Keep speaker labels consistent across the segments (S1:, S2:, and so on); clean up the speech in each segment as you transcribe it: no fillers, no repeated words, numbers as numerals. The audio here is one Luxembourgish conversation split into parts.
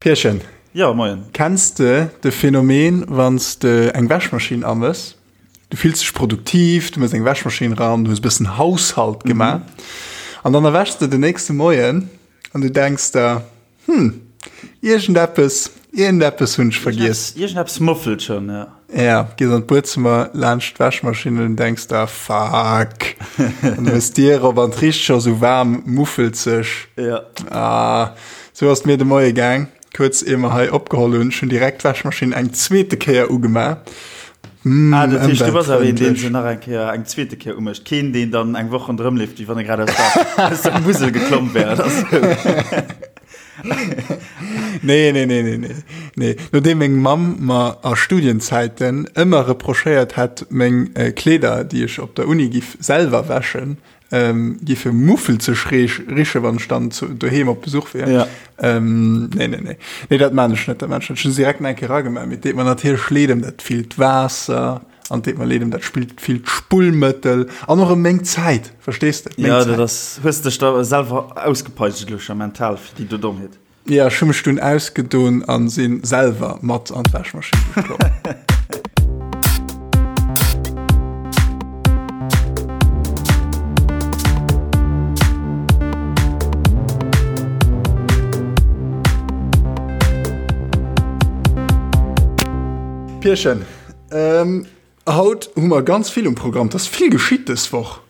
S1: Pierchen.
S2: Jo, moien.
S1: Kenns de de Phänomen, wann s de eng Wäschmaschinn amëss, du fills dech produktiv, du mëss eng Wäschmaschinn ran, du hues e bëssen Haushalt gemaach, an dann erwächs de den nächste Moien an du denks der, Hm, iergendeppes, iergendeppes hunn ech vergiess.
S2: Iergendeppes muffelt schonn,
S1: jo. Ja, gees an d'Buedzëmmer laanscht d'Wäschmaschinn an denks der, Fuck! An du hues d'Dier op an et richt scho sou waarm muffelzeg.
S2: Ja.
S1: Ah, sou ass et mir de Moie gaang, kuerz ier mer hei opgeholl hunn. Ech hunn direkt d'Wäschmaschinn eng zweete Kéier ugemaach.
S2: Mm, ah, dat heescht, du bass awer een, deen se nach eng Kéier, eng zweete Kéier umécht. Keen, deen dann eng Woch ronderëm leeft, wéi wann e grad aus der, aus der Musel geklomm wär oder sou.
S1: Nee, nee, nee, nee, nee. Nee. Nodeem meng Mamm mer a Studienzäiten ëmmer reprochéiert hätt, meng Kleeder, déi ech op der Uni giff selwer wäschen, giffe muffelzeg riche wann ech dann doheem op Besuch wier.
S2: Ja.
S1: Ähm, nee, nee, nee. Nee, dat maan ech net, dat maan ech net. Ech hunn se direkt nach eng Kéier eragemaach, mee et deet mer natierlech leed ëm dat villt Waasser an et deet mer leed ëm dat spillt villt Spullmëttel an och ëm meng Zäit, verstees de?
S2: Meng Ja, dat ass, hues dech da selwer ausgepeitscht elo scho mental fir déi do Dommheet.
S1: Ja, ech hu mech dunn ausgedon an sinn selwer mat an d'Wäschmaschinn geklomm. Pierchen, ähm, haut hu mer ganz vill um Programm. 't ass vill geschitt dës Woch.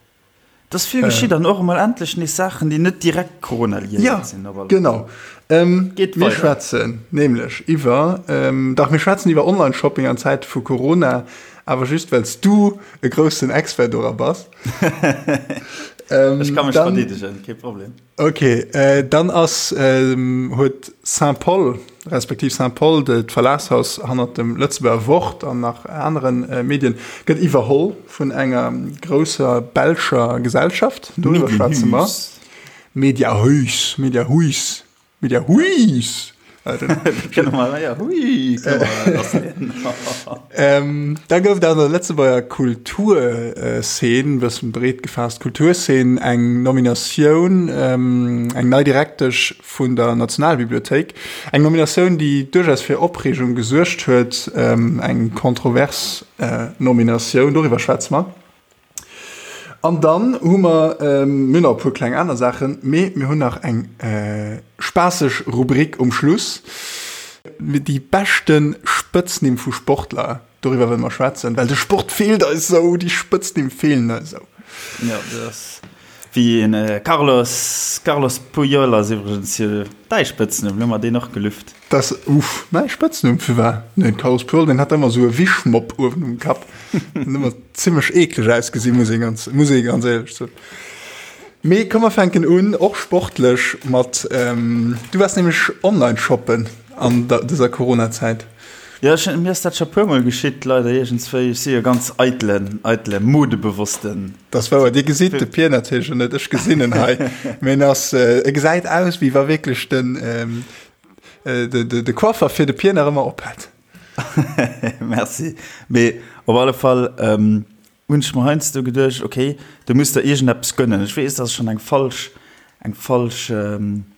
S2: Et ass vill geschitt an och emol endlech nees Saachen, déi net direkt Corona-liéiert sinn.
S1: Ja, genau. Ähm, Geet mir schwätzen nämlech iwwer, ähm, dach, mir schwätzen iwwer Online-Shopping an Zäite vu Corona, awer just well s du e groussen Expert dora bass.
S2: ähm, Ech ka mech verdeedegen, kee Problem.
S1: Ok, dann ass, huet Saint-Paul, respektiv Saint-Paul, d'Verlagshaus hannert dem Lëtzebuerger Wort an nach anere Medien, gëtt iwwerholl vun enger grousser belscher Gesellschaft. Doriwwer schwätze mer. Mediahuis, Mediahuis. Media Huis! Da gouf et an der Lëtzebuerger Kulturzeen, e bëssen breet gefaasst Kulturzeen, eng Nominatioun, eng nei Direktesch vun der Nationalbibliothéik. Eng Nominatioun, déi duerchaus fir Opreegung gesuergt huet, eng kontrovers Nominatioun, doriwwer schwätze mer. An dann hu mer, mir hunn nach e puer kleng aner Saachen, mee mir hunn nach eng spaasseg Rubrik um Schluss, déi beschte Spëtznimm vu Sportler, doriwwer wëlle mer schwätzen, well de Sport feelt eis esou, déi Spëtznimm feelen eis esou.
S2: Jo, dat ass wéi en Carlos, Carlos Puyol ass iwwregens jo däi Spëtznumm, elo hu mer deen och gelüft.
S1: Das, uff, mäi Spëtznumm, firwat? Den Carlos Puyol, deen hat ëmmer esou e Wischmopp uewen um Kapp. Den ëmmer zimmlech eekleg ausgesinn, muss ee ganz, muss ee ganz éierlech soen. Mee komm mer fänken un, och sportlech, mat, du waars nämlech online shoppen an der, dëser Corona-Zäit.
S2: Jo, ech, mir ass dat scho puermol geschitt, leider iergendswéi. Ech si jo ganz eitelen, eitele Modebewossten.
S1: Dat ass wouer. Dir gesitt de Pier natierlech elo net, ech gesinn en hei. Mee en ass, e gesäit aus, wéi wa wierklech den, de, de, de Coiffer fir de Pier nach ëmmer op hätt.
S2: Merci. Mee op alle Fall ähm, hunn ech mer heiansdo geduecht, okay, du muss der iergendeppes gönnen. Ech weess, dat ass schonn eng falsch, eng falsch ähm,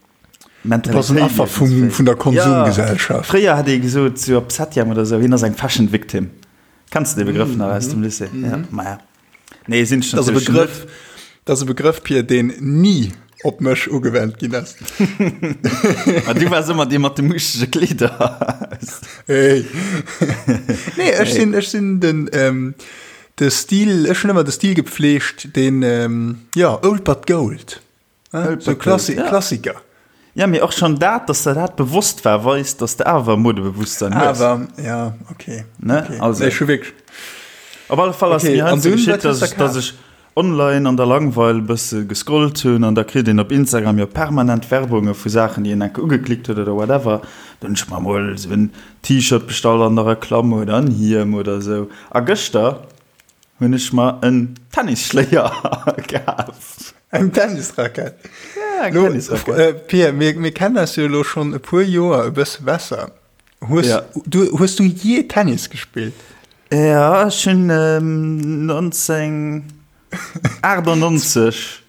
S1: Mentalitéit. Du bass en Affer vum, vun der Konsumgesellschaft.
S2: Ja, fréier hätt ee gesot, sou op Septième oder sou, hien ass eng Fashion Victim. Kenns de dee Begrëff nach aus dem Lycée? Ja, maja.
S1: Nee, sinn ech natierlech net. Dat ass e Begrëff, Pir, deen ni op mech ugewennt ginn ass.
S2: Ma du waars ëmmer dee mat de muuschtege Kleeder.
S1: Hey. Nee, ech sinn, ech sinn den, ähm, de Stil, ech hunn ëmmer de Stil gepflegt, deen, ähm, jo, old but gold. So Klassi ja. Klassiker.
S2: Ja, mee och schon dat, dass der dat bewosst war, weist, dass de awer Modebewusstsein
S1: hues. Awer, ja, okay.
S2: Ne?
S1: Okay.
S2: Also.
S1: Nee, schon wirklich.
S2: Op alle Fall ass okay. mir heiansdo geschitt, dass ech, dass ech online an der Langweil e bësse gescrollt hunn an da kritt een op Instagram jo permanent Werbunge vu Saachen, déi een enke ugeklickt huet oder whatever. Dann hunn ech mer mol esou en T-Shirt bestallt an der Reklamm oder en Hiem oder esou. A gëschter hunn ech mer en Tennisschléier kaf.
S1: Eng Tennisrackett?
S2: Ja, eng Tennisrackett.
S1: Äh, Pierre, mir, mir kennen eis jo elo schonn e puer Joer e bësse besser. Hues, ja. du, hues du je Tennis gespillt?
S2: Ja, ech hunn ähm, 1998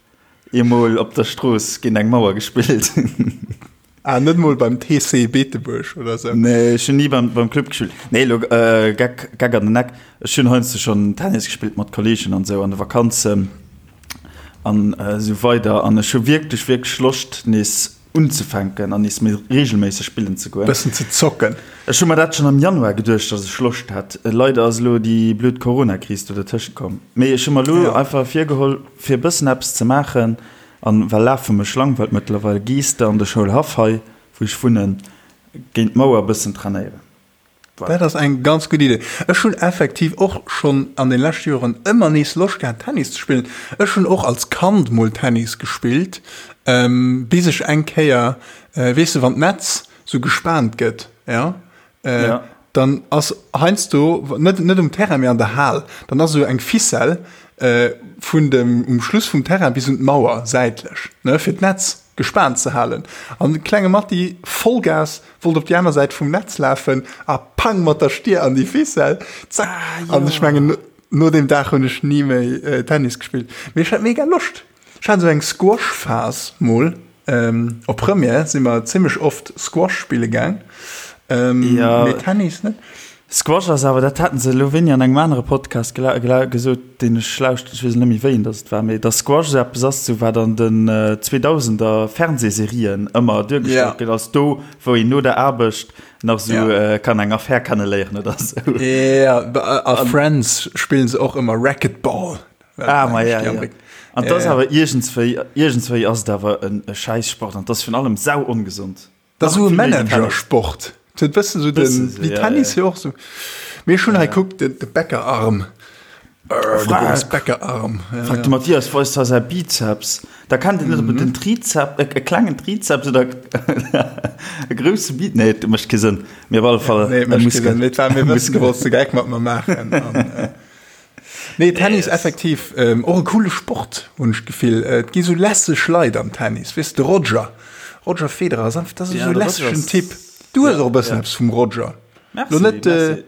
S2: eemol op der Strooss géint eng Mauer gespillt.
S1: Ah, net mol beim TC Beetebuerg oder sou?
S2: Nee, ech hunn ni beim, beim Club gespillt. Nee, elo äh, Geck, Geck an den Eck. Ech hunn heiansdo schonn Tennis gespillt mat Kolleegen an sou an de Vakanzen an äh, sou weider. An ech hu wierklech, wierklech Loscht nees unzefänken an nees méi reegelméisseg spillen ze goen.
S1: Bëssen ze zocken.
S2: Ech hu mer dat schonn am Januar geduecht, dass ech Loscht hätt. Leider ass elo déi blöd Corona-Kris do dertëschent komm. Mee ech hu mer elo einfach virgeholl, fir e bëssen eppes ze maachen. An well Lafe mech langweilt mëttlerweil, gees de an de Schoulhaff hei, wou ech wunnen, géint d'Mauer bëssen trainéieren.
S1: Voilà. Dat ass eng ganz gutt Idee. Ech hunn effektiv och schonn an den leschte Joren ëmmer nees Loscht gehat Tennis ze spillen. Ech hunn och als Kand mol Tennis gespillt, bis ech eng Kéier, weess de wann d'Netz sou gespaant gëtt, jo, Äh, dann ass heiansdo, net, net um Terrain, mee an der Hal, dann ass esou eng Ficelle äh, vun dem, um Schluss vum Terrain bis un d'Mauer säitlech, ne, fir d'Netz gespaant ze halen. An de klenge Matti, Vollgas, wollt op déi aner Säit vum Netz lafen a pang mat der Stier an déi Ficelle, zack. Ah, an ech mengen, no deem Dag hunn ech ni méi äh, Tennis gespillt. Mee ech hat mega Loscht. Ech hat esou eng Squash-Phas mol. Op Première si mer zimmlech oft Squash spille gaang, mee Tennis net.
S2: Squash ass awer, dat haten se elo wéini an engem anere Podcast gesot, deen ech lauschteren, ech weess net méi wéien datt et war, mee datt Squash esou eppes ass, esou wat an den 2000er Fernsehserien ëmmer duergestallt gëtt, als do wou een no der Aarbecht nach esou kann eng Affär kenneléieren oder esou.
S1: Jo, a Friends spillen se och ëmmer Racquetball.
S2: Ah, ma ja, ja. An das awer iergendswéi, iergendswéi ass et awer en e Schäissport an das virun allem sau ongesond.
S1: Dat ass esou e Managersport. Et huet bëssen esou den, wéi Tennis jo och esou. Mee ech hunn hei, kuck, de, de Bäckerarm. De Boris Bäckerarm.
S2: Frag de Mathias, weist hei säi Bizeps. Da kennt een net, ob et en Trizep, e klengen Trizeps oder e grousse Bi, nee, et mécht kee Sënn. Mee op alle Fall
S1: e Muskel. Nee, et mécht kee Sënn. Mee et war mir e bëssen, du wollts de Geck mat mer maachen. An, Nee, Tennis effektiv och e coole Sport, hunn ech d'Gefill. Et gi sou lässeg Leit am Tennis, weess de Roger, Roger Federer ass einfach, dat ass esou e lässegen Typ. Du hues och e bëssen eppes vum Roger.
S2: Merci, merci.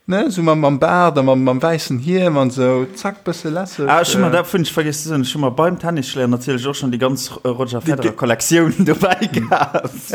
S1: Ne, esou mam, mam Baart a mam, mam wäissen Hiem an esou, zack, bësse lässeg.
S2: Ah, ech hu mer, dat hunn ech vergiess ze soen, ech hu mer beim Tennisschléier natierlech och schonn déi ganz Roger Federer Kollektioun dobäi kaf.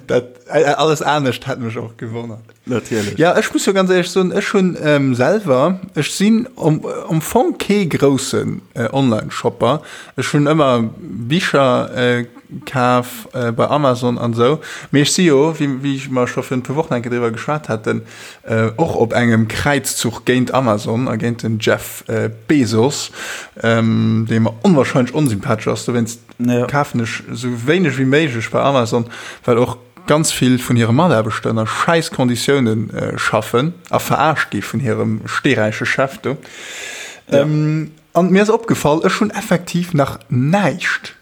S1: Dat, äh, alles anescht hätt mech och gewonnert.
S2: Natierlech.
S1: Ja, ech muss jo ganz éierlech soen, ech hunn ähm, selwer, ech sinn am, am Fong kee groussen äh, Online-Shopper. Ech hunn ëmmer Bicher äh, kaf äh, bei Amazon an esou. Mee ech si jo, wéi, wéi mer scho virun e puer Wochen eng Kéier driwwer geschwat haten, äh, och op engem Kräizzuch géint Amazon a géint den Jeff äh, Bezos, ähm, dee mer onwahrscheinlech onsympathesch ass. Dowéinst
S2: Ja.
S1: Kafen ech sou wéineg wéi méiglech bei Amazon, well och ganz vill vun hire Mataarbechter ënner schäiss Konditioune schaffen a verarscht gi vun hirem steeräiche Chef do.
S2: Ja.
S1: An mir ass opgefall, ech hunn effektiv nach näischt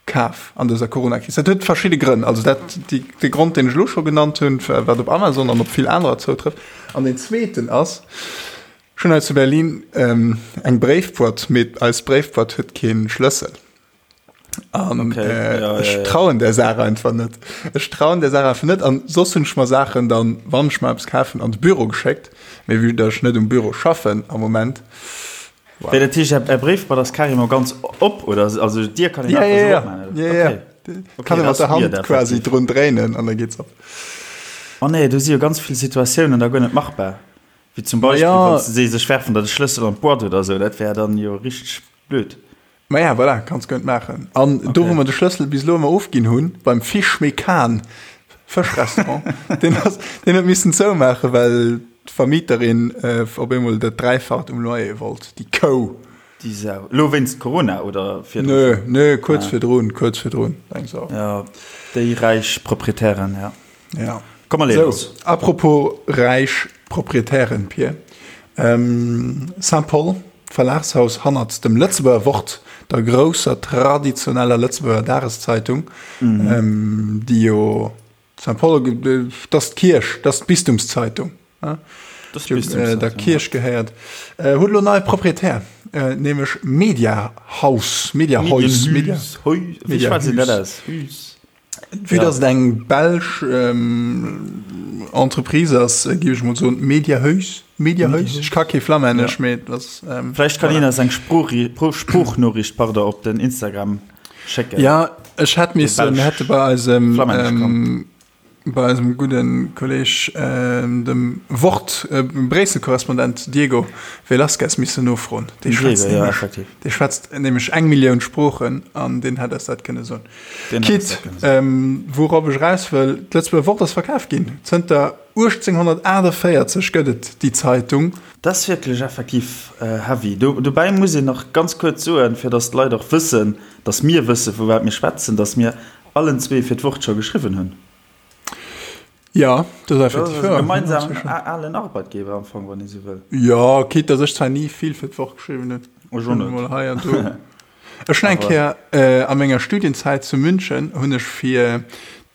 S1: kaf an dëser Coronakris. Dat huet verschidde Grënn. Also dat, déi, de Grond, deen ech elo scho genannt hunn, wat op Amazon an op vill anerer zoutrëfft. An deen zweeten ass, ech hunn hei zu Berlin eng Bréifboîte, mee eis Bréifboîte huet kee Schlëssel. An
S2: okay.
S1: äh,
S2: ja,
S1: ech
S2: ja, ja.
S1: trauen der Saach einfach net. Ech trauen der Saach einfach net. An soss hunn ech mer Saachen dann, wann ech mer eppes kafen, an de Büro geschéckt. Mee vue dass ech net um Büro schaffen am Moment.
S2: Wow. Wéi dat heescht, Är Bréifboîte ass carrément ganz op, oder? Also d'Dier kann een
S1: Ja,
S2: einfach
S1: ja,
S2: sou
S1: ja.
S2: opmaachen,
S1: Ja, ja.
S2: Okay. Okay,
S1: Kann ee
S2: dat
S1: mat
S2: ass
S1: der
S2: weird,
S1: Hand quasi
S2: effektiv.
S1: drun dréinen an da geet's op.
S2: Oh nee, do si jo ganz vill Situatiounen da guer net machbar. Wéi zum Beispill,
S1: Ja.
S2: wann se sech werfen der de Schlëssel an d'Boîte oder sou, dat wär dann jo richteg blöd.
S1: Maja, voilà, kanns guer net maachen. An do, wou mer de Schlëssel bis elo ëmmer ofginn hunn, beim Fish Mekan Fëschrestaurant, deen ass, deen huet missen zoumaachen, well d'Vermieterin op eemol dat Dräifacht um Loyer wollt, déi Kou.
S2: Déi Sau. Elo wéinst Corona oder
S1: virdru Nö, schonn? nö, kuerz virdrun, kuerz virdrun, eng Sau.
S2: Jo, déi räich Proprietären, ja.
S1: Ja.
S2: Komm, mer leeë
S1: Sou,
S2: lass.
S1: apropos räich Proprietären, Pir, Saint-Paul, D'Verlagshaus hannert dem Lëtzebuerger Wort, der grousser traditioneller Lëtzebuerger Dageszeitung, déi jo Saint-Paul, dat ass d'Kierch, dat ass d'Bistumszeitung, déi der Kierch gehéiert, huet elo en neie Proprietär, nämlech Mediahaus, Mediahuis,
S2: Medienhüs, wéi schwätzt een dat aus? Hüs?
S1: Vue dass et eng belsch Entreprise ass, géif ech mol soen Mediahuis, Mediahuis. Ech ka kee Flammännesch, mee et ass.
S2: Vläicht kann een eis eng Sproochnoriicht, pardon, op den Instagram. Schécken.
S1: Ja, ech hätt missen, mir hätte bei eisem, bei eisem gudde Kolleg, dem Wort Bréissel-Korrespondent Diego Velazquez missen nofroen. Dee schwätzt nämlech, dee schwätzt nämlech eng Millioun Sproochen an deen hätt eis dat kënne soen. Quitte, wourop ech eraus wëll, D'Lëtzebuerger Wort ass verkaf ginn. Zënter 1848 gëtt et déi Zeitung.
S2: Dat ass wierklech effektiv heavy. Dobäi muss een nach ganz kuerz soen, fir datt d'Leit och wëssen, datt mir wëssen, vu wat mir schwätzen, datt mir allen zwee fir d'Wort scho geschriwwen hunn.
S1: Jo, dat ass effektiv
S2: wouer. Gemeinsamen alen Arbeitgeber am Fong, wann ee sou wëll.
S1: Jo, quitte datt ech zwar ni vill fir d'Wort geschriwwen hunn.
S2: Ech och net.
S1: Mol hei an do. Ech hunn eng Kéier a menger Studienzäit zu München hunn ech fir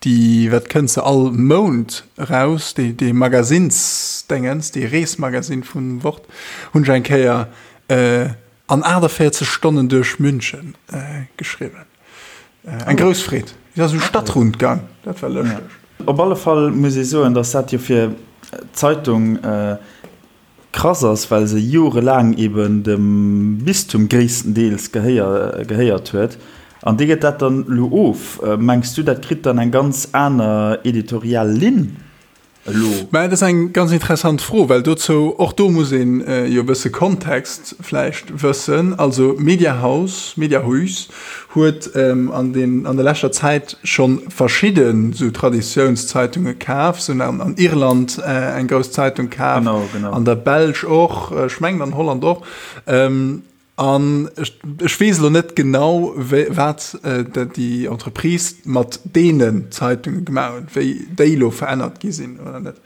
S1: déi, wat kënnt se all Mount eraus, déi dee Magasinsdéngens, dee Reesmagasinn vum Wort, hunn ech eng Kéier an 48 Stonnen duerch München geschriwwen. Eng grouss Freed. Et ass esou Stadtrundgang, dat war lëschteg.
S2: Op alle Fall muss ee soen, datt dat jo fir d'Zeitung Krass ass, well se jorelaang eben dem Bistum gréisstendeels gehéiert huet. An dee gëtt dat dann elo of. Mengs du, dat kritt dann eng ganz aner editorial Linn elo?
S1: Mä dat ass eng ganz interessant Fro, well dozou, och do muss een jo e bësse Kontext vläicht wëssen. Also Mediahaus, Mediahuis huet an den, an der leschter Zäit scho verschidde sou Traditiounszeitunge kaf. Se hunn an Irland eng grouss Zeitung kaf, an der Belsch och, ech mengen an Holland och. An ech weess elo net genau, wat déi Entreprise mat deenen Zeitunge gemaach huet, wéi déi elo verännert gi sinn oder net.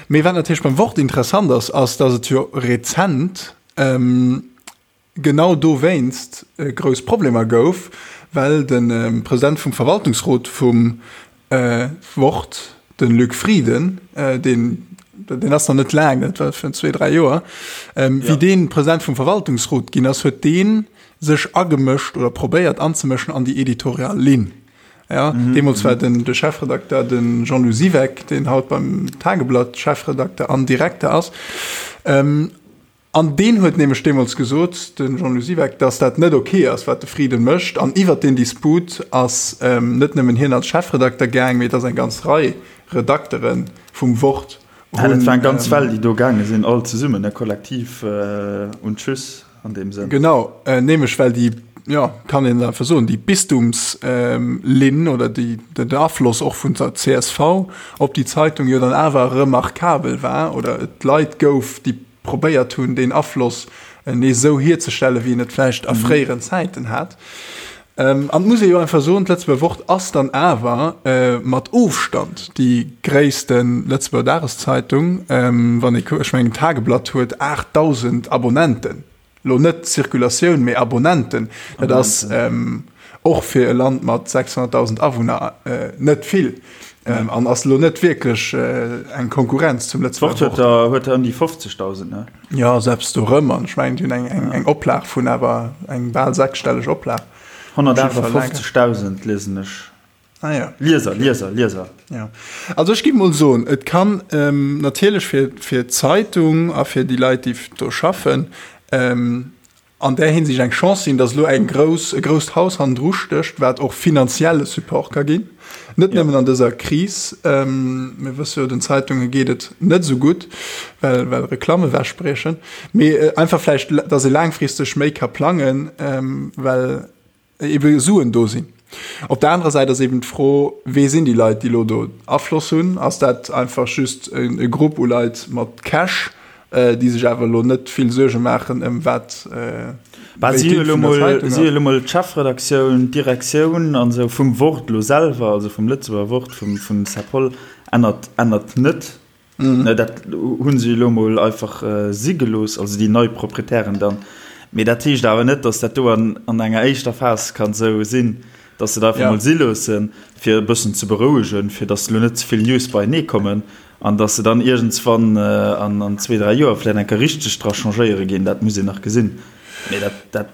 S1: Mee wat natierlech beim Wort interessant ass, ass, datt et jo rezent, genau dowéinst grouss Problemer gouf, well de President vum Verwaltungsrot vum Wort, de Luc Frieden, deen, deen ass nach net laang, dat war virun zwee, dräi Joer, wéi dee President vum Verwaltungsrot ginn ass, huet dee sech agemëscht oder probéiert anzemëschen an déi editorial Linn. Ja, deemools war den, de Chefredakter de Jean-Lou Siweck, deen haut beim Tageblatt Chefredakter an Direkter ass. An deen huet nämlech deemools gesot, de Jean-Lou Siweck, datt dat net ok ass, wat de Frieden mécht. An iwwert deen Disput ass net nëmmen hien als Chefredakter gaang, mee et ass eng ganz Rei Redaktere vum Wort
S2: hunn. Dat war eng ganz Well, déi do gaange sinn, all zesummen, ne, kollektiv und tschüss an deem Sënn.
S1: Genau, nämlech well déi, jo, kann een einfach soen, déi Bistumslinn oder déi, den Afloss och vun der csv op déi Zeitung jo dann awer remarkabel war oder et Leit gouf, déi probéiert hunn, deen Afloss nees esou hierzestellen, wéi en et vläicht a fréieren Zäiten hat. An et muss ee jo einfach soen, d'Lëtzebuerger Wort ass dann awer mat Ofstand déi gréisste Lëtzebuerger Dageszeitung. Wann ee kuckt, ech mengen d'Tageblatt huet 8.000 Abonnenten. Lo net Zirkulatioun, mee Abonnenten. Dat ass och fir e Land mat 600.000 Awunner net vill an ass lo net wierklech eng Konkurrenz zum
S2: Lëtzebuerger Wort. D'Wort huet der ëm déi 50.000, ne?
S1: Jo, selbst do rëm. An ech mengen, déi hunn eng Oplag vun awer eng bal sechsstelleg Oplag.
S2: 158.000 liesen ech.
S1: Ah ja.
S2: Lieser, Lieser, Lieser.
S1: Ja. Also ech gi mol soen, et kann ähm, natierlech fir, fir d'Zeitung a fir déi Leit, déi do schaffen, ähm, an där Hinsicht eng Chance sinn, datt elo eng grouss, e grousst Haus hannendru stécht, wat och finanzielle Support ka ginn. Net ja. nëmmen an dëser Kris. Ähm, mir wësse jo, den Zeitunge geet et net esou gutt, well, well Reklamme wechbriechen. Mee äh, einfach vläicht, datt ee laangfristeg méi ka plangen, ähm, well ebe Suen do sinn. Op der anerer Säit ass eben d'Fro, Wee sinn déi Leit, déi elo do Afloss hunn? Ass dat einfach just e Grupp u Leit mat Cash, déi sech awer elo net vill Suerge maachen ëm wat
S2: Bah, si hu elo mol, si hu elo mol d'Chefredaktioun, d'Direktioun an esou vum Wort elo selwer, also vum Lëtzebuerger Wort, vum, vum Serpol, ännert, ännert net. Dat hu se elo mol einfach si gelooss, also déi nei Proprietären dann. Mee dat heescht awer net, datt dat do an enger éischter Phas kann esou sinn, datt se dat einfach mol si loossen, fir e bëssen ze berouegen, fir datt elo net ze vill News beienee kommen an datt se dann iergendswann an zwee, dräi Joer vläicht eng Kéier richteg dra changéiere ginn. Dat muss een nach gesinn. Mee dat, dat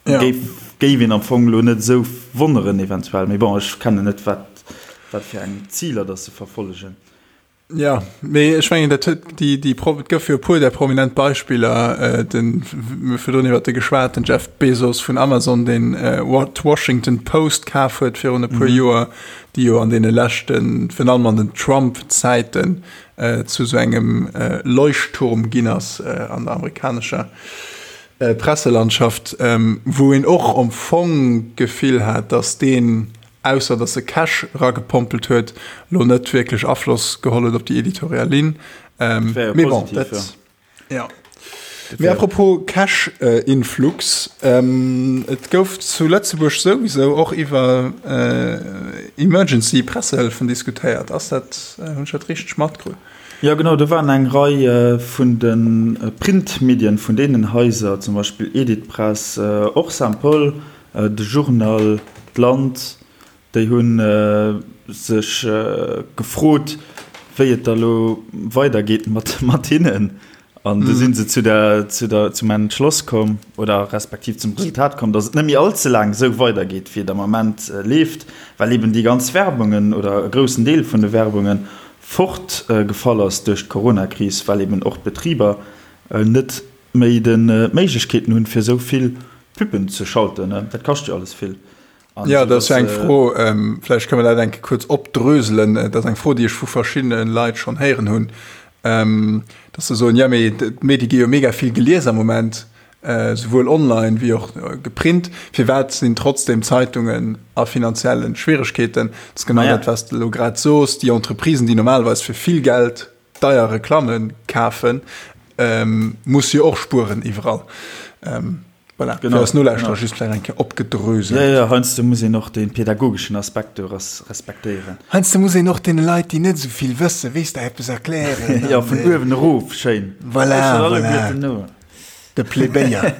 S2: géif, géif een am Fong elo net esou wonneren eventuell. Mee bon, ech kennen net, wat, wat fir eng Ziler datt se verfollegen.
S1: Ja, mee ech mengen, dat huet déi, déi Pro, et gouf jo e puer där prominent Beispiller, den, mir hu virdrun iwwert e geschwat, den Jeff Bezos vun Amazon, deen d'Washington Post kaf huet virun e puer Joer, déi jo an deene leschten, virun allem an den Trump-Zäiten, zu esou engem Leuchtturm ginn ass an der amerikanescher Presselandschaft, wou een och am Fong d'Gefill hat, datt deen, ausser datt e Cash eragepompelt huet, lo net wierklech Afloss geholl huet op déi editorial Linn. Mee bon, dat, jo. Mee apropos Cash-Influx, et gouf zu Lëtzebuerg souwisou och iwwer Emergency-Pressehëllefen diskutéiert. Ass dat, hunn ech dat richteg matkritt?
S2: Jo genau, do waren eng Rei vun de Printmedien vun deenen Haiser, zum Beispill Editpress, och Saint-Paul, de Journal, d'Land, déi hu sech gefrot, wéi et da lo weidergeet mat hinnen. An du sinn se zu der, zu der, zum Entschloss komm oder respektiv zum Resultat komm, datt et net méi all ze laang esou weidergeet, wéi et am Ament leeft, well eben déi ganz Werbungen oder e groussen Deel vun de Werbunge fort gefall ass duerch d'Coronakris, well eben och d'Betriber net méi d'Méiglechkeeten hunn, fir esou vill Pubben ze schalten. Dat kascht jo alles vill.
S1: An Ja, dat ass jo eng Fro, vläicht kënne mer dat eng Kéier kuerz opdröselen. Dat ass eng Fro, déi ech vu verschiddene Leit schonn héieren hunn, dass se soen, jo mee d'Medie gi jo mega vill gelies am Moment, souwuel online wéi och geprint. Firwat sinn trotzdeem Zeitungen a finanzielle Schwieregkeeten? Dat ass genau dat, wat s de elo grad sos, Déi Entreprisen, déi normalerweis fir vill Geld deier Reklamme kafen, musse jo och spueren iwwerall. Voilà,
S2: genau,
S1: fir eis Nolauschterer just vläicht eng Kéier opgedröselt.
S2: Jo, jo, heiansdo muss een och de pädagogeschen Aspekt do respektéieren.
S1: Heiansdo muss een och deene Leit, déi net esou vill wëssen, weess de, eppes erklären.
S2: Jo, vun uewen erof, schéin.
S1: Voilà, voilà. De Plebéier.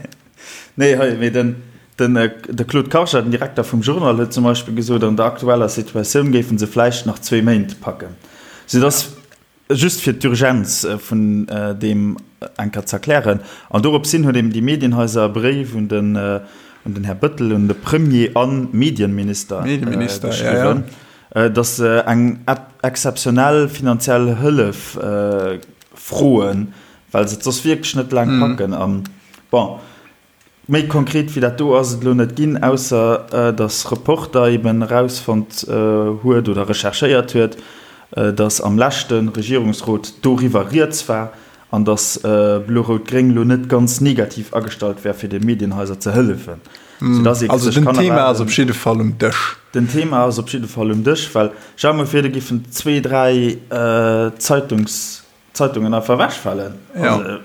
S2: Nee, hei, mee den, den, de Claude Karger, den Direkter vum Journal, huet zum Beispill gesot, an der aktueller Situatioun géife se vläicht nach zwee Méint packen. Soudass. Just fir d'Urgenz vun deem eng Kéier ze erklären. An dorops hin huet eben déi Medienhaiser e Bréif un den, un den Här Bëttel, un de Premier a Medienminister geschriwwen, datt se eng exzeptionell finanziell Hëllef froen, well se et soss wierklech net laang packen. An bon, Méi konkret wéi dat do ass et elo net ginn, ausser datt Reporter eben erausfonnt huet oder recherchéiert huet, datt am leschte Regierungsrot doriwwer rieds war an datt Blo-Rout-Gréng elo net ganz negativ agestallt wär, fir de Medienhaiser ze hëllefen.
S1: Soudatt ee Also
S2: sech
S1: den kann Thema ass op jidde Fall um Dësch.
S2: Den Thema ass op jidde Fall um Dësch, well stell der mol vir, do giffen zwee, dräi Zeitungs Zeitungen einfach ewechfalen.
S1: Ja. Also,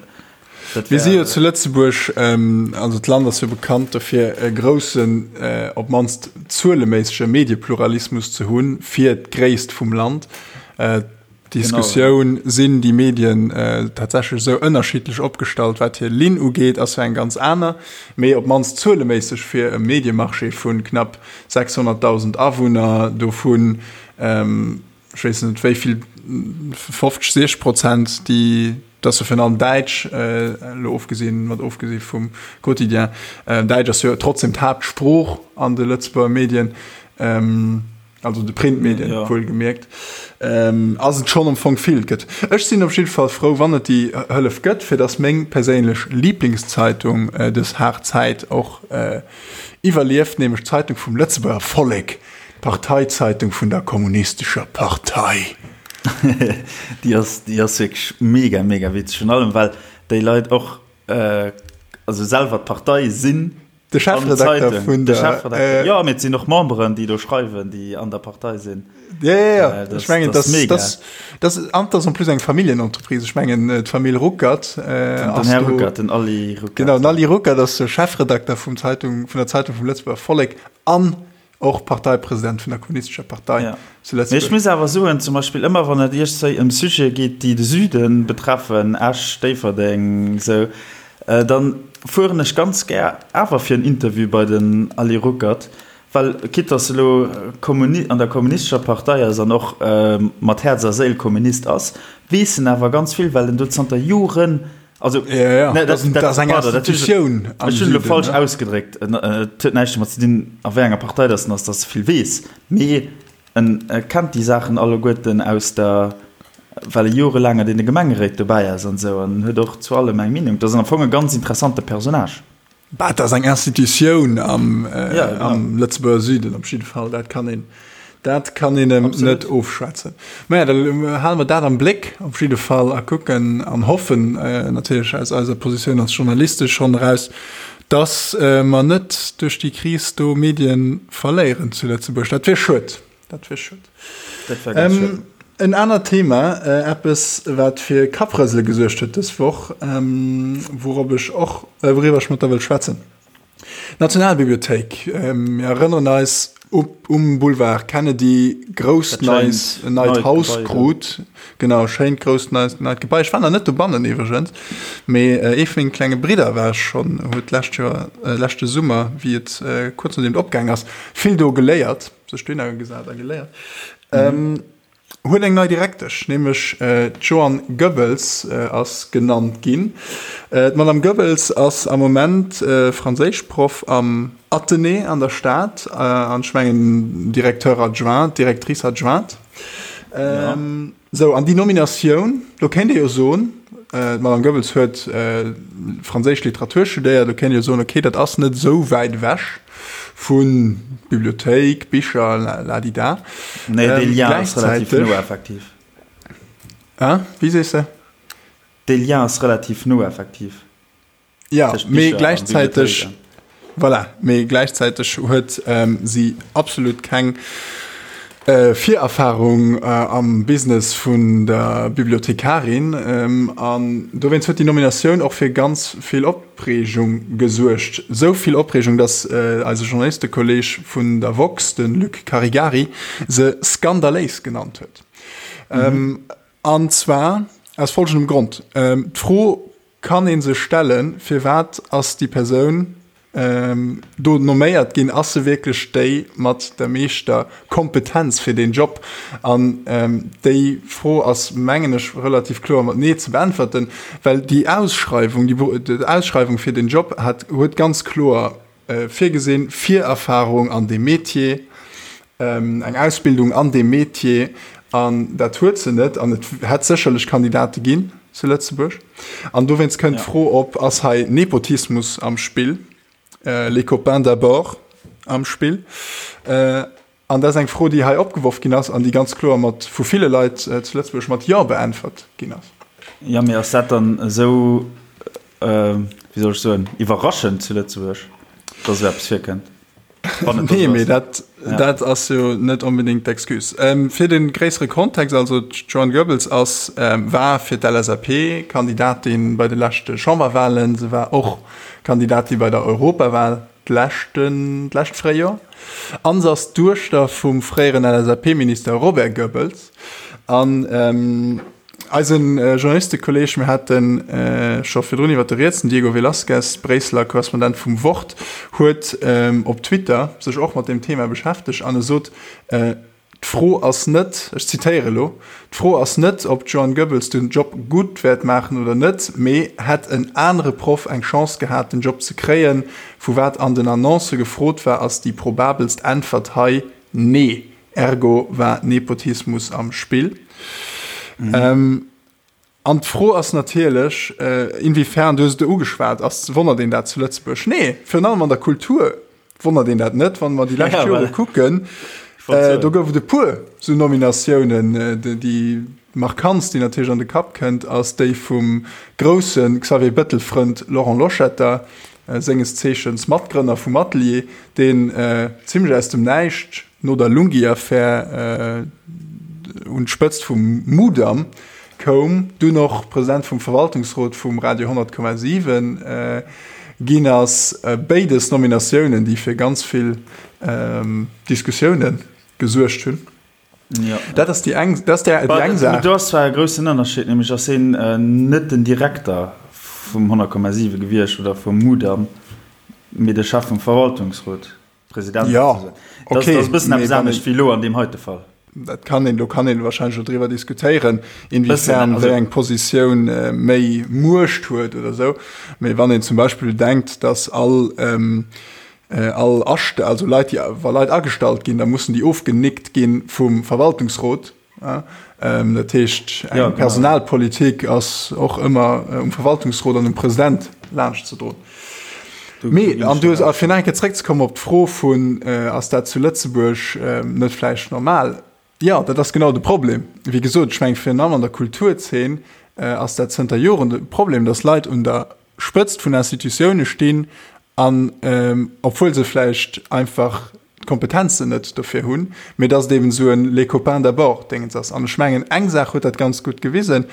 S1: dat Mir si jo zu Lëtzebuerg, ähm, also d'Land ass jo bekannt dofir, e groussen, äh, op d'mannst zueleméissege Mediepluralismus ze hunn fir d'Gréisst vum Land. Äh, D'Diskussioun, genau, ja. Sinn déi Medien äh, tatsächlech esou ënnerschiddlech opgestallt, wat hir Linn ugeet, ass jo eng ganz aner. Mee op d'mannst zueleméisseg fir e Mediemarché vu knapp 600.000 Awunner, dovun ähm, ech weess net wéi vill, 50, 60 Prozent, déi, dat ass jo virun allem Däitsch, elo ofgesinn, mat ofgesi vum Quotidien, Däitsch ass jo trotzdem d'Haaptsprooch an de Lëtzebuerger Medien, also de Printmedien wuelgemierkt, ass et schonn am Fong vill gëtt. Ech sinn op jidde Fall frou, wann et déi Hëllef gëtt, fir datt meng perséinlech Liiblingszeitung dës haart Zäit och iwwerlieft, nämlech d'Zeitung vum Lëtzebuerger Vollek. D'Parteizeitung vun der Kommunistescher Partei.
S2: Déi ass, déi ass wierklech mega, mega witzeg. Virun allem, well déi Leit och, also selwer d'Partei sinn.
S1: De Chefredakter vun
S2: der. De Chefredakter, jo, mee et sinn och Memberen, déi do schreiwen, déi an der Partei sinn.
S1: Jo, jo, jo, ech mengen, dat ass, dat ass, an dat ass en plus eng Familljenentreprise. Ech mengen, d'Famill Ruckert
S2: ass do. Den Här Ruckert, den Aly
S1: Ruckert. Genau, den Aly Ruckert ass de Chefredakter vum Zeitung, vun der Zeitung vum Lëtzebuerger Vollek an Och Parteipresident vun der Kommunistescher Partei
S2: ja. zu Lëtzebuerg. Mee ech muss awer soen, zum Beispill ëmmer wann et iergstwéi ëm Sujete geet, déi de Süde betreffen, Esch, Déifferdeng, esou, dann fueren ech ganz gär awer fir en Interview bei den Ali Ruckert, well quitte dass e lo Kommuni an der Kommunistescher Partei ass an och mat Häerz a Séil Kommunist ass, weess en awer ganz vill, well en do zanter Joren
S1: Also, ja, ja. Ne,
S2: dat, dat, dat ass eng Institutioun. Ech hunn elo falsch ausgedréckt. Et huet näischt domat ze dinn, a wéi enger Partei dass en ass, dass e vill weess. Mee en kennt déi Saachen alleguerten aus der. well e jorelaang an deene Gemengeréit dobäi ass an esou an huet och zu allem eng Meenung. Dat ass am Fong e ganz interessante Personnage.
S1: Bah, dat ass eng Institutioun am, ja, genau. am Lëtzebuerger Süden op jidde Fall. Dat kann een, dat kann een em net ofschwätzen. Mä ja, da hale mer dat am Bléck op jidde Fall a kucken an hoffen äh, natierlech aus eiser Positioun als Journaliste schonn eraus, dass äh, mer net duerch déi Kris do Medien verléieren zu Lëtzebuerg. Dat wier schued. Dat wier schued. Dat wär ganz ähm, En anert Thema, äh, eppes wat fir Kapprësele gesuergt huet dës Woch, ähm, wourop ech och äh, wouriwwer ech mat der wëll schwätzen. Nationalbibliothéik, ähm, mir erënneren eis op, um Boulevard Kennedy grousst neis en neit Haus krut. Genau schéint grousst neist neit Gebai. Ech war nach net dobannen iwwregens, mee äh, ee vun menge klenge Bridder war schonn, huet d'lescht Joer äh, leschte Summer, wéi et äh, kuerz nodeem et opgaang ass, vill do geléiert. sech dohinner gesat a geléiert, mhm. huet eng nei Direktesch, nämlech äh, d'Joanne Goebbels äh, ass genannt ginn. Äh, D'Madame Goebbels ass am Moment äh, Franséischproff am Athenée an der Stad, äh, an ech mengen Directeur adjoint, Directrice adjointe. Ähm, ja. Sou, an déi Nominatioun, do kéint ee jo soen, d'Madame Goebbels huet franséisch Literatur studéiert, do kéint ee jo soen, okay, dat ass net esou wäit ewech vu Bibliothéik, Bicher, ladida.
S2: Nee, dee Lien ass relativ no, effektiv.
S1: Hein? Wéi sees de?
S2: Dee Lien ass relativ no, effektiv.
S1: Ja, mee gläichzäiteg, voilà, mee gläichzäiteg huet ähm, si absolut keng äh, Virerfahrung äh, am Business vun der Bibliothekarin ähm, an dowéinst huet déi Nominatioun och fir ganz vill Opreegung gesuergt. Sou vill Opreegung, datt äh, eise Journalistekolleg vun der woxx, de Luc Caregari, se skandaléis genannt huet. Mhm. Ähm, an zwar aus folgendem Grond. Ähm, D'Fro Kann ee sech stellen, firwat ass déi Persoun do nomméiert ginn? Ass se wierklech déi mat der meeschter Kompetenz fir deen Job? An déi Fro ass, mengen ech, relativ kloer mat Nee ze beäntwerten, well déi Ausschreiwung, déi Ausschreiwung fir deen Job hat, huet ganz kloer virgesinn, Virerfahrung an deem Metier, eng Ausbildung an deem Metier, an dat huet se net. An et hätt sécherlech Kandidate ginn zu Lëtzebuerg. An dowéinst kënnt d'Fro op, Ass hei Nepotismus am Spill, les copains d'abord am Spill? An dat ass eng Fro, déi hei opgeworf ginn ass an déi ganz kloer mat vu ville Leit zu Lëtzebuerg mat Jo beäntwert ginn ass.
S2: Jo, mee ass dat dann esou, wéi soll ech soen, iwwerraschend zu Lëtzebuerg, dass esou eppes virkënnt?
S1: Wann et Nee, mee dat, ja. dat ass jo net onbedéngt d'Excuse. Ähm, fir de gréissere Kontext, also d'Joanne Goebbels ass, ähm, war fir d'LSAP Kandidatin bei de leschte Chamberwahlen, se war och Kandidatin bei der Europawal d'leschten, d'lescht Fréijoer an se ass d'Duechter vum fréieren LSAP-Minister Robert Goebbels. An ähm, eisen Journalistekolleg, mir hate scho virdrun iwwer de riets, den Diego Velazquez, Bréisseler Korrespondent vum Wort, huet op Twitter sech och mat deem Thema beschäftegt an e sot, D'Fro ass net, ech zitéiere elo, D'Fro ass net, ob d'Joanne Goebbels den Job gutt wäert maachen oder net, mee hätt en anere Proff eng Chance gehat, den Job ze kréien? Vu wat an den Annoncë gefrot war, ass déi probabelst Äntwert hei Nee. Ergo war Nepotismus am Spill. An d'Fro ass natierlech, inwiefern, du hues et ugeschwat, ass, wonnert een dat zu Lëtzebuerg? Nee, virun allem an der Kultur wonnert een dat net. Wann mer déi lescht Jore kucken, do gouf et e puer esou Nominatiounen. Déi markantst, déi natierlech an de Kapp kënnt, ass déi vum grousse Xavier Bettel-Frënd Laurent Loschetter, senges Zeechens Matgrënner vum Atelier, deen zimmlech aus dem Näischt no der Lunghi-Affär un d'Spëtzt vum Mudam koum, dunn och President vum Verwaltungsrot vum Radio 100,7 ginn ass. Béides Nominatiounen, déi fir ganz vill Diskussioune gesuergt hunn. Dat ass déi eng Saach.
S2: Do ass zwar e groussen Ënnerscheed, nämlech ass hien net den Direkter vum 100,7 gewiescht oder vum Mudam, mee de Chef vum Verwaltungsrot.
S1: President ja,
S2: okay. Das, das bëssen eppes anescht wéi lo an deem heite Fall.
S1: Dat kann een, do kann een wahrscheinlech och driwwer diskutéieren, inwiefern wéi eng Positioun äh, méi Muecht huet oder sou. Mee wann een zum Beispill denkt, dass all ähm, äh, all Ascht also Leit, déi wa Leit agestallt ginn, da mussen déi ofgenickt ginn vum Verwaltungsrot. Dat heescht, eng Personalpolitik ass och ëmmer um Verwaltungsrot an um President laanschtzedroen. Mee, an du hues, a fir nach eng Kéier zréckzekommen op d'Fro vun, ass dat zu Lëtzebuerg net vläicht normal? Jo, dat ass genau de Problem. Wéi gesot, ech mengen, virun allem an der Kulturzeen ass dat zënter Joren de Problem, datt Leit un der Spëtzt vun Institutioune stinn an, obwuel se vläicht einfach d'Kompetenzen net dofir hunn, mee datt et eben esou en les copains d'abord Déngens ass. An ech mengen, eng Saach huet dat ganz gutt gewisen,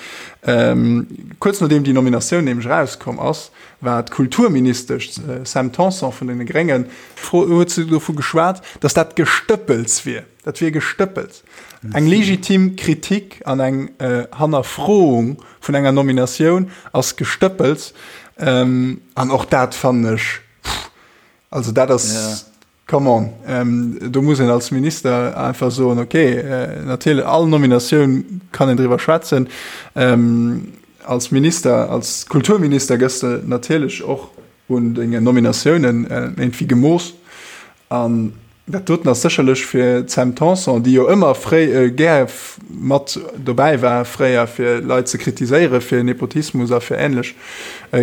S1: Kuerz nodeem déi Nominatioun nämlech erauskomm ass, war d'Kulturministesch Sam Tanson vun deene Gréngen, huet se dovu geschwat, datt dat Gestëppels wier. Dat wier Gestëppels. Eng legitim Kritik an eng Hannerfroung vun enger Nominatioun ass Gestëppels. An och dat fannen ech, pff, also dat ass, come on, do muss een als Minister einfach soen, okay, natierlech, all Nominatioun kann een driwwer schwätzen. Als Minister, als Kulturminister gëss de natierlech och un dengen Nominatiounen iergendwéi gemooss. An dat doten ass sécherlech fir d'Sam Tanson, déi jo ëmmer fréi gär mat dobäi war fréier, fir Leit ze kritiséiere fir Nepotismus a fir änlech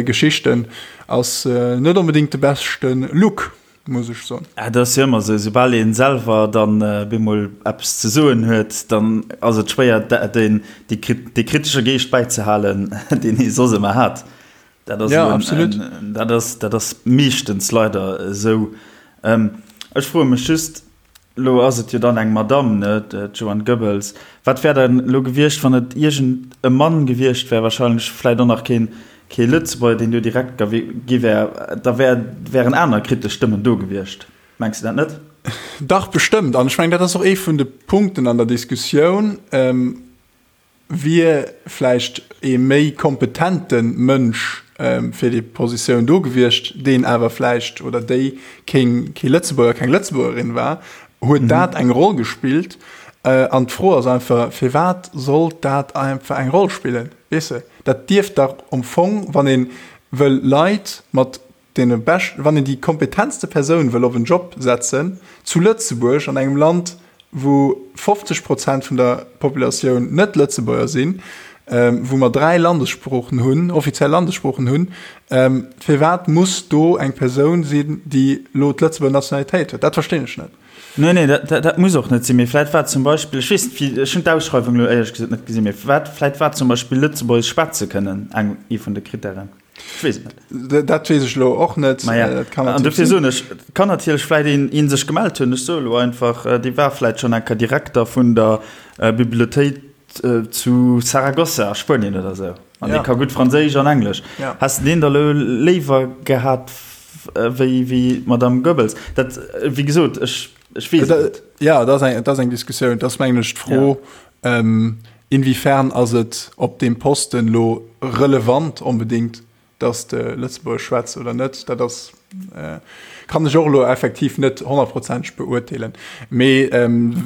S1: Geschichten, ass net onbedéngt de beschte Look, muss ech soen.
S2: Et ass jo ëmmer esou, soubal ee selwer dann bemol eppes ze soen huet, dann ass et schwéier, dee kritesche Geescht bäizehalen, deen ee soss ëmmer hat. Dat ass, ja, absolut. En, dat ass, dat ass meeschtens leider esou. Ähm, ech froe mech just, lo ass et jo dann eng Madame, ne, d'Joanne Goebbels. Wat wär dann lo gewiescht, wann et iergend e Mann gewiescht wär, wahrscheinlech vläit och nach keen, kee Lëtzebuerger, deen do direkt gi wär, da wär, wären aner kritesch Stëmmen do gewiescht. Mengs de dat net?
S1: Dach, bestëmmt. An ech mengen, dat ass och ee vun de Punkten an der Diskussioun. Ähm, Wier vläicht ee méi kompetente Mënsch fir déi Positioun do gewiescht, deen awer vläicht oder déi keen kee Lëtzebuerger, keng Lëtzebuergerin war, huet dat eng Roll gespillt? An d'Fro ass einfach, firwat sollt dat einfach eng Roll spillen? Weess de, dat dierft dach am Fong, wann ee wëll Leit mat deene beschten, wann een déi kompetentste Persoun wëll op en Job setzen, zu Lëtzebuerg, an engem Land, wou 50 Prozent vun der Populatioun net Lëtzebuerger sinn, wou mer 3 Landessproochen hunn, offiziell Landessproochen hunn, firwat muss do eng Persoun sinn, déi elo d'Lëtzebuerger Nationalitéit huet? Dat verstinn ech net.
S2: Nee, nee, dat, dat muss och net sinn. Mee vläit war zum Beispill, ech weess net, wéi, ech hunn d'Ausschreiwung elo éierlech gesot net gesinn, mee wat, vläit war zum Beispill Lëtzebuergesch schwätze kënnen eng, ee vun de Krittären.
S1: Ech weess et net. Dat weess ech elo och net.
S2: Ma ja. Dat kann An dofir soen ech, et kann natierlech vläit een, een sech gemellt hunn, ech soe elo einfach, dee war vläit schonn eng Kéier Direkter vun der Bibliothéik zu Saragossa a Spuenien oder esou. An dee ka gutt Franséisch an Englesch.
S1: Ja.
S2: Häss de deen da elo léiwer gehat wéi, wéi d'Madame Goebbels? Dat, wéi gesot, ech, ech weess et net.
S1: Ja, dat ass eng, dat ass eng Diskussioun. Dat ass, mengen ech, d'Fro, Inwiefern ass et op deem Posten elo relevant onbedéngt, dass de Lëtzebuergesch schwätz oder net? Dat ass, kann ech och elo effektiv net honnertprozenteg beurteelen. Mee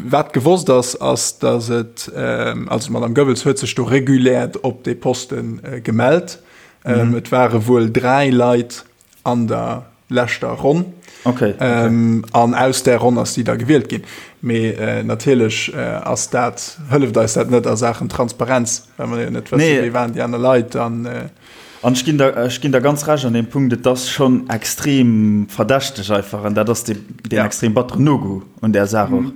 S1: wat gewosst ass, ass, dass et, also d'Madame Goebbels huet sech do regulär op dee Poste gemellt. Et ware wuel 3 Leit an der leschter Ronn.
S2: Okay,
S1: okay. Ähm, an aus der Ronn ass si da gewielt ginn. Mee äh, natierlech äh, ass dat hëlleft eis dat net a Saachen Transparenz, well mer jo net wëssen,
S2: nee.
S1: wéi waren déi aner Leit an äh,
S2: An ech ginn der, ech ginn der ganz recht an deem Punkt, et ass schonn extrem verdächteg einfach an dat ass dee, deen
S1: ja.
S2: extrem batteren No-Go un där Saach och.
S1: Mhm.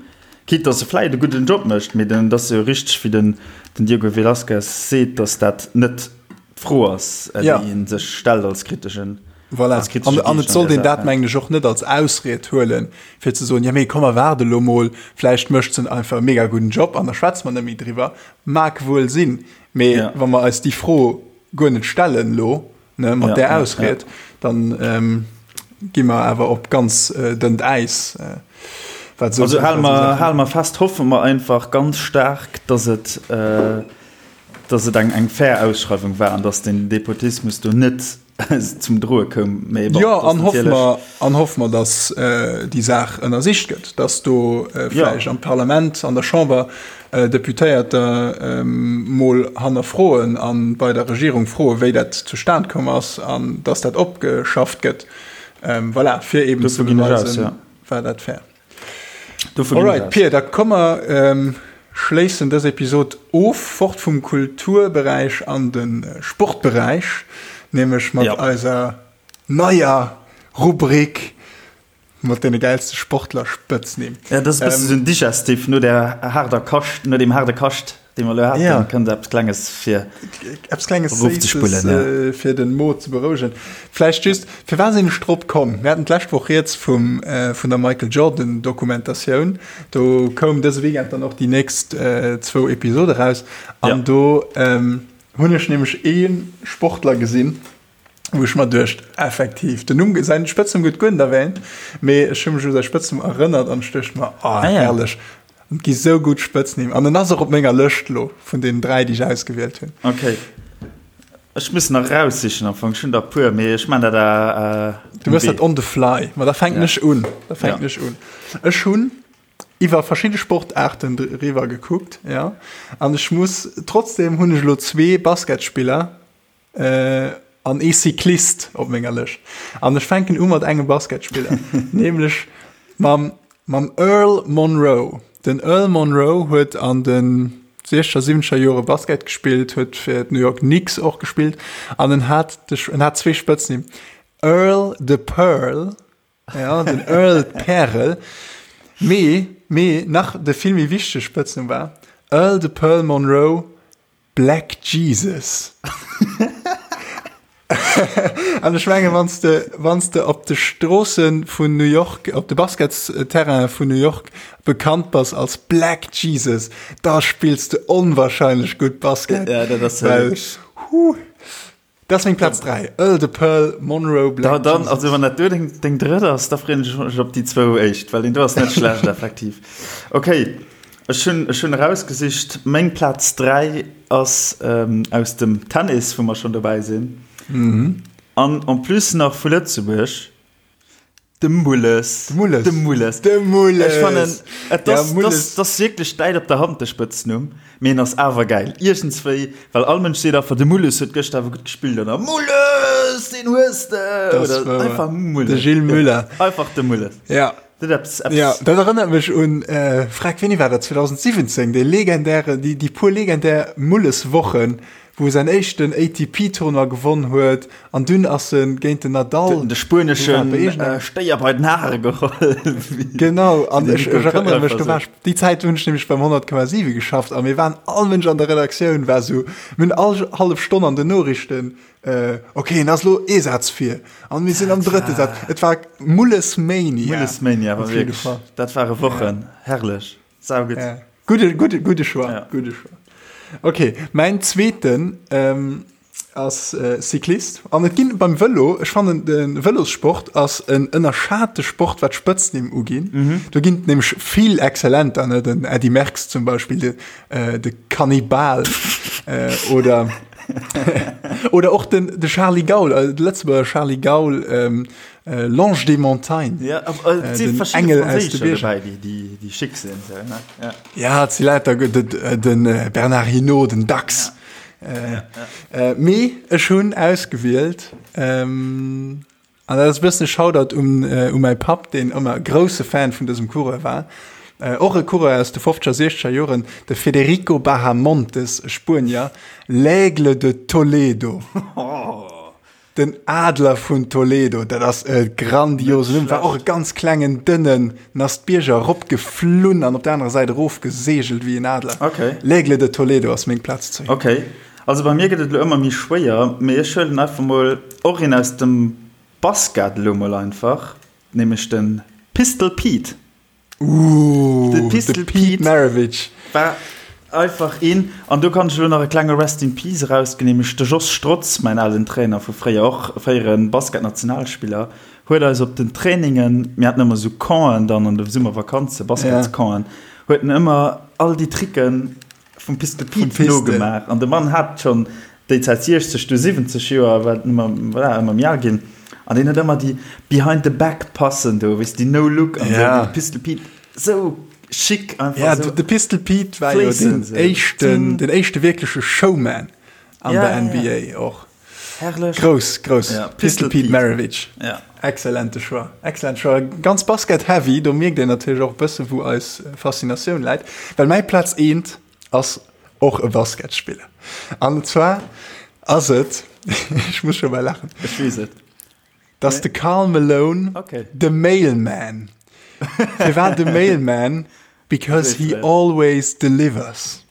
S2: Quitte dass e vläit e gudden Job mécht, mee den, et ass jo richteg wéi den, den Diego Velazquez seet, dass dat net d'Fro ass, déi
S1: ja.
S2: ee sech stellt als kriteschen
S1: Voilà.
S2: Als kritesche
S1: An, an
S2: Geescht
S1: et
S2: an
S1: sollt
S2: där
S1: een dat,
S2: Saach.
S1: mengen ech, och net als Ausried huelen, fir ze soen, ja mee komm mer waarde lo mol, vläicht mécht se einfach e mega gudden Job an da schwätze mer net méi driwwer. Mag wuel sinn, mee
S2: Ja.
S1: wa mer eis déi Fro guer net stellen lo, ne, mat
S2: Ja,
S1: där
S2: ja, ja.
S1: Ausried, dann ähm, gi mer awer op ganz äh, dënnt Äis. Äh, wat
S2: Also
S1: esou
S2: hale
S1: wat esou
S2: mer,
S1: Saachen.
S2: hale mer fest, hoffe mer einfach ganz staark, dass et, äh, dass et eng, eng fair Ausschreiwung war an dass den Nepotismus do net zum Droe koum. Mee bon,
S1: Jo,
S2: dat ass
S1: an hoffe
S2: natierlech.
S1: mer, an hoffe mer, dass déi Saach ënnersicht gëtt, dass do
S2: Ja.
S1: vläicht am Parlament, an der Chamber Deputéierter mol hannerfroen a bei der Regierung froen, wéi dat zustan komm ass an dass dat opgeschafft gëtt. Voilà, fir eeben ze
S2: Dovun ginn ech aus,
S1: beweisen,
S2: ja.
S1: war dat fair.
S2: Dovun ginn ech
S1: Alright,
S2: aus.
S1: Pir, da komme mer. schléissen dës Episod of, fort vum Kulturberäich an de Sportberäich, nämlech mat eiser neier Rubrik mat deene gäilste Sportler-Spëtznimm.
S2: Ja, dat ass e bësse sou en Digestif no der haarder Kascht, no deem haarde Kascht, dee mer elo haten, ja. kënnt eppes Klenges fir
S1: eppes Klenges Séisses, ja. äh, fir den Mo ze berouegen. Vläicht just, firwat sinn ech drop komm? Mir haten d'lescht Woch rieds vum, äh, vun der Michael Jordan Dokumentatioun. Do koum dëse Weekend dann och déi nächst äh, zwou Episode raus. An ja. do ähm, hunn ech nämlech ee Sportler gesinn, wou ech mer duecht, effektiv, den Numm, säin Spëtznumm gëtt guer net erwähnt, mee ech hu mech u säi Spëtznumm erënnert an ech duecht mer, oh, ah, ja. herrlech, et gi sou gutt Spëtznimm. An en ass och op menger Lëscht lo vun deenen 3, déi ech ausgewielt hunn.
S2: Okay. Ech muss nach raussichen am Fong, ech hunn der e puer, mee ech man dat
S1: äh, Du mëss dat on the fly. Ma da fänken ja. ech un. Da fänken ja. ech un. Ech hunn iwwer verschidde Sportaarten driwwer gekuckt, ja. An ech muss, trotzdem hunn ech lo zwee Basketspiller, An ee Cyclist op menger Lëscht. An ech fänken u mat engem Basketspiller, nämlech mam, mam Earl Monroe. Den Earl Monroe huet an de siechzeger, siwwenzeger Jore Basket gespillt, huet fir d'New York Knicks och gespillt an en hat de, en hat zwee Spëtznimm, Earl the Pearl, ja, den Earl d'Pärel, mee, mee nach de vill méi wichtege Spëtznumm war Earl the Pearl Monroe, Black Jesus. An ech menge wann s de wann s de op de Stroosse vun New York, op de Basketsterraine vun New York bekannt bass als Black Jesus, da spills de onwahrscheinlech gutt Basket.
S2: Ja, dat ass well,
S1: huh, dat ass meng Plaz 3, Earl the Pearl Monroe
S2: Black da, dann, Jesus. Also wann dat do deng, deng drëtt ass, da freeën ech mech op déi zwou éischt, well deen do ass net schlecht effektiv. Okay. Ech hunn, ech hunn erausgesicht, meng Plaz 3 ass aus dem Tennis, wou mer schonn dobäi sinn. An en plus nach vu Lëtzebuerg, de Mulles.
S1: De Mulles.
S2: De Mulles.
S1: De Mulles.
S2: Ech fannen, et ass, ja, Mulles. Dat ass wierklech däit op der Hand, de Spëtznumm, mee en ass awer gäil. Iergendswéi, well all Mënsch seet einfach, de Mulles huet gëschter awer gutt gespillt, oder Mulles, deen hues de!
S1: Oder einfach Mulles. De Gilles Muller.
S2: Einfach de Mulles.
S1: Ja.
S2: Dat eppes,
S1: eppes. Ja, dat erënnert mech un, äh, frag, wéini war dat, 2017, dee legendäre, déi, déi puer legendär Mulles-Wochen, wou e säin éischten ATP-Tournoi gewonn huet, an dunn ass e géint den Nadal.
S2: Huet en de spueneschen Stéier bei den Hare geholl.
S1: Genau, an ech, ech erënnere mech, do war ech, déi Zäit hunn ech nämlech beim 100,7 geschafft, a mir waren, all Mënsch an der Redaktioun war sou, mir hunn all hallef Stonn an den Noriichten Ok, en ass lo ee Saz vir an mir sinn am drëtte Saz. Et war Mullesmania.
S2: Mullesmania war wierklech, dat ware Wochen, herrlech, saugutt.
S1: Gudde, gudde, gudde Choix, gudde Choix. Ok, mäin zweeten ass Cyclist an et ginn beim Vëlo, ech fannen de Vëlossport ass en ënnerschate Sport wat d'Spëtznimm uginn. Do ginn et nämlech vill Exzellenter, ne, den Eddy Merckx zum Beispill, de de Kannibal oder oder och den de Charly Gaul, äh, de Lëtzebuerger Charly Gaul, ähm, äh, L'Ange des Montagnes.
S2: Ja, äh, äh, den Engel aus de Bierger. Dabei, déi, déi, déi schick sinn. So,
S1: ne? Ja, ja et si lauter gutt, den, den äh, Bernard Hinault, den Dax. Ja. Äh, ja, ja. Äh, mee ech hunn ausgewielt, ähm, An dat ass e bëssen e Shoutout un u mäi Papp, deen ëmmer grousse Fan vun dësem Coureur war. Och e Coureur aus de fofzeger, siechzeger Joren, de Federico Bahamontes, e Spuenier, L'Aigle de Toledo. Den Adler vun Toledo, dat ass e grandiosen Numm. War och e ganz klengen, dënnen, en ass d'Bierger eropgeflunn an op der anerer Säit erofgeseegelt wéi en Adler. L'Aigle de Toledo ass meng Plaz
S2: 10. Also bei mir gëtt et elo ëmmer méi schwéier, mee ech huelen einfach mol och een aus dem Basket elo mol einfach, nämlech de Pistol Pete.
S1: Ooh, de Pistol Pete Maravich
S2: war einfach een. An do kann ech elo nach e klenge Rest in Peace erausginn, nämlech de Jos Strotz, mäin alen Trainer vu fréier, och fréiere Basketnationalspiller, huet eis op den Trainingen, mir haten ëmmer esou Campen dann an de Summervakanze, Basketscampen, huet en ëmmer all déi Tricken Vum Pistol Pete nogemaach. An de Mann hat schonn déi Zäit 60, du 70 Joer, war ëmmer, voilà, ëmmer méi al ginn. An deen huet ëmmer déi Behind the Back Passen do, weess déi No Look an esou, de Pistol Pete, sou chic
S1: einfach. Ja, de Pistol Pete war jo den éischten, den éischte wierkleche Showman an der NBA och.
S2: Herrlech.
S1: Grouss, grouss. Ja, Pistol Pete Maravich. Ja. Excellente Choix. Excellent Choix. Ganz Basket-heavy, do mierkt een natierlech och e bësse wou eis Faszinatioun läit. Well mäi Plaz eent ass och e Basketspiller. An zwar ass et, ech muss scho bal laachen.
S2: Ech weess et.
S1: Dat ass de Karl Malone,
S2: okay.
S1: de Mailman. Firwat de Mailman? Because he always delivers.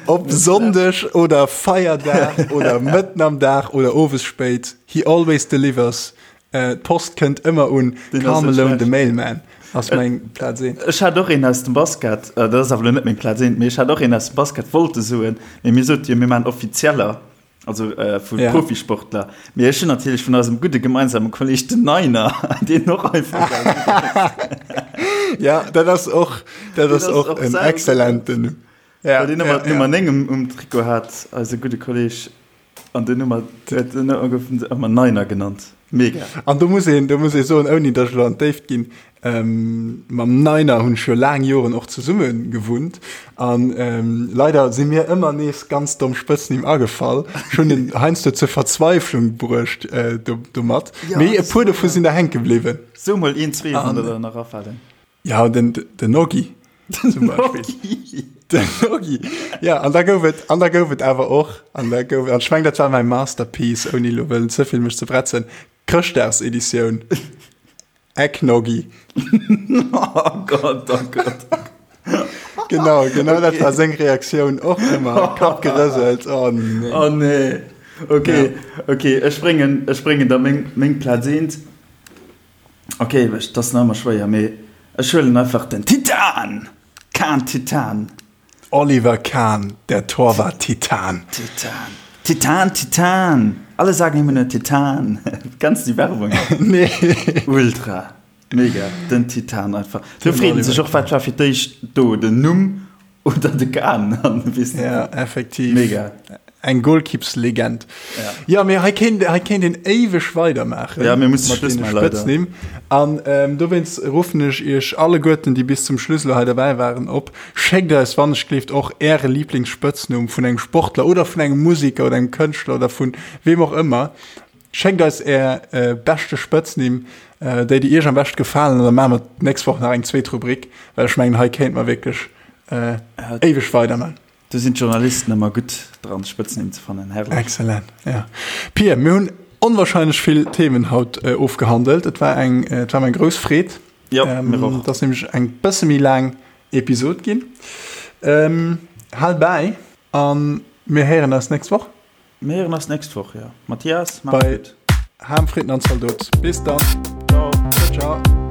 S1: Ob Sonndeg oder Feierdag oder mëtten am Dag oder owes spéit, he always delivers. Äh, d'Post kënnt ëmmer un. Karl Malone, de Mailman, ass meng Plaz
S2: 1. Ech hat och een aus dem Basket, äh, dat ass awer elo net meng Plaz 1, mee ech hat och een aus dem Basket wollte soen, mee mir sote jo, mir maachen offizieller. Also äh, vu ja. Profisportler. Mee ech hunn natierlech vun eisem gudde gemeinsame Kolleg den Niner, deen och einfach.
S1: ja, dat ass och, dat ass och, och en exzellenten.
S2: Ja, den Nummer, ja, Nummer 9 um, um Trikot hat, eise gudde Kolleg. An den Nummer, den gouf ëmmer Niner genannt.
S1: Mega. An do muss een, do muss ee soen, ouni datt ech elo an d'Déift ginn, mam Niner hunn ech jo laang Joren och zesumme gewunnt an leider si mir ëmmer nees ganz domm Spëtznimm agefall. Ech hunn en heiansdo zur Verzweiflung bruecht domat, mee e puer dovu sinn der hänke bliwwen.
S2: So mol een, zwee, wann der der nach afalen.
S1: Ja, den, den Noggi zum Beispill. Den Noggi. Ja, an da gouf et, an da gouf et awer och, an da gouf, an ech meng, dat war mäi Masterpiece, ouni elo wëllen ze vill mech ze bretzen, Chrëschtdagseditioun, Eggnoggee.
S2: Oh Gott, oh Gott.
S1: Genau, genau dat war seng Reaktioun och ëmmer. Kapp gerëselt, oh nee.
S2: Oh nee. Okay, ja. okay, ech bréngen, ech bréngen da meng, meng Plaz eent. Ok, dat ass nach ëmmer schwéier, mee ech huelen einfach den Titan! Kahn Titan!
S1: Oliver Kahn, der Torwart Titan.
S2: Titan. Titan, Titan! Alle sagen immer nur Titan. Kennst du déi Werbung
S1: nach? Nee.
S2: Ultra. Mega. Den Titan einfach. Do freet een sech och, wat war fir d'éischt do, den Numm Oder de Kahn,
S1: weess net. Ja, effektiv.
S2: Mega.
S1: Eng Golkippslegend. Ja. Ja, mee hei kéint, hei kéint een éiweg weidermaachen.
S2: Ja, mir musse Schluss maachen, leider.
S1: Spëtznimm. An ähm, dowéinst ruffen ech iech alleguerten, déi bis zum Schluss elo hei derbäi waren, op, Schéckt eis wannechgelift och äre Lieblingsspëtznumm vun engem Sportler oder vun engem Musiker oder engem Kënschtler oder vun weem och ëmmer. Schéckt eis är beschte Spëtznimm, déi déi iech am beschte gefalen, an da maache mer d'nächst Woch nach eng zweet Rubrik, well ech mengen, hei kéinte mer wierklech éiweg weiderman.
S2: Do sinn d'Journalisten ëmmer gutt dran, Spëtznimm ze fannen.
S1: Herrlech. Excellent, ja. Pia, mir hunn onwahrscheinlech vill Themen haut ofgehandelt. Et war eng, et war mir eng grouss Freed.
S2: Jo, mir
S1: och. Et ass nämlech eng bësse méi laang Episod ginn. Hal bäi a mir héieren eis nächst Woch.
S2: Mir héieren eis nächst Woch, jo. Mathias,
S1: mach's gutt. Bei Ham, Fritten an Zaldot. Bis dann.
S2: Ciao.
S1: Ciao, ciao.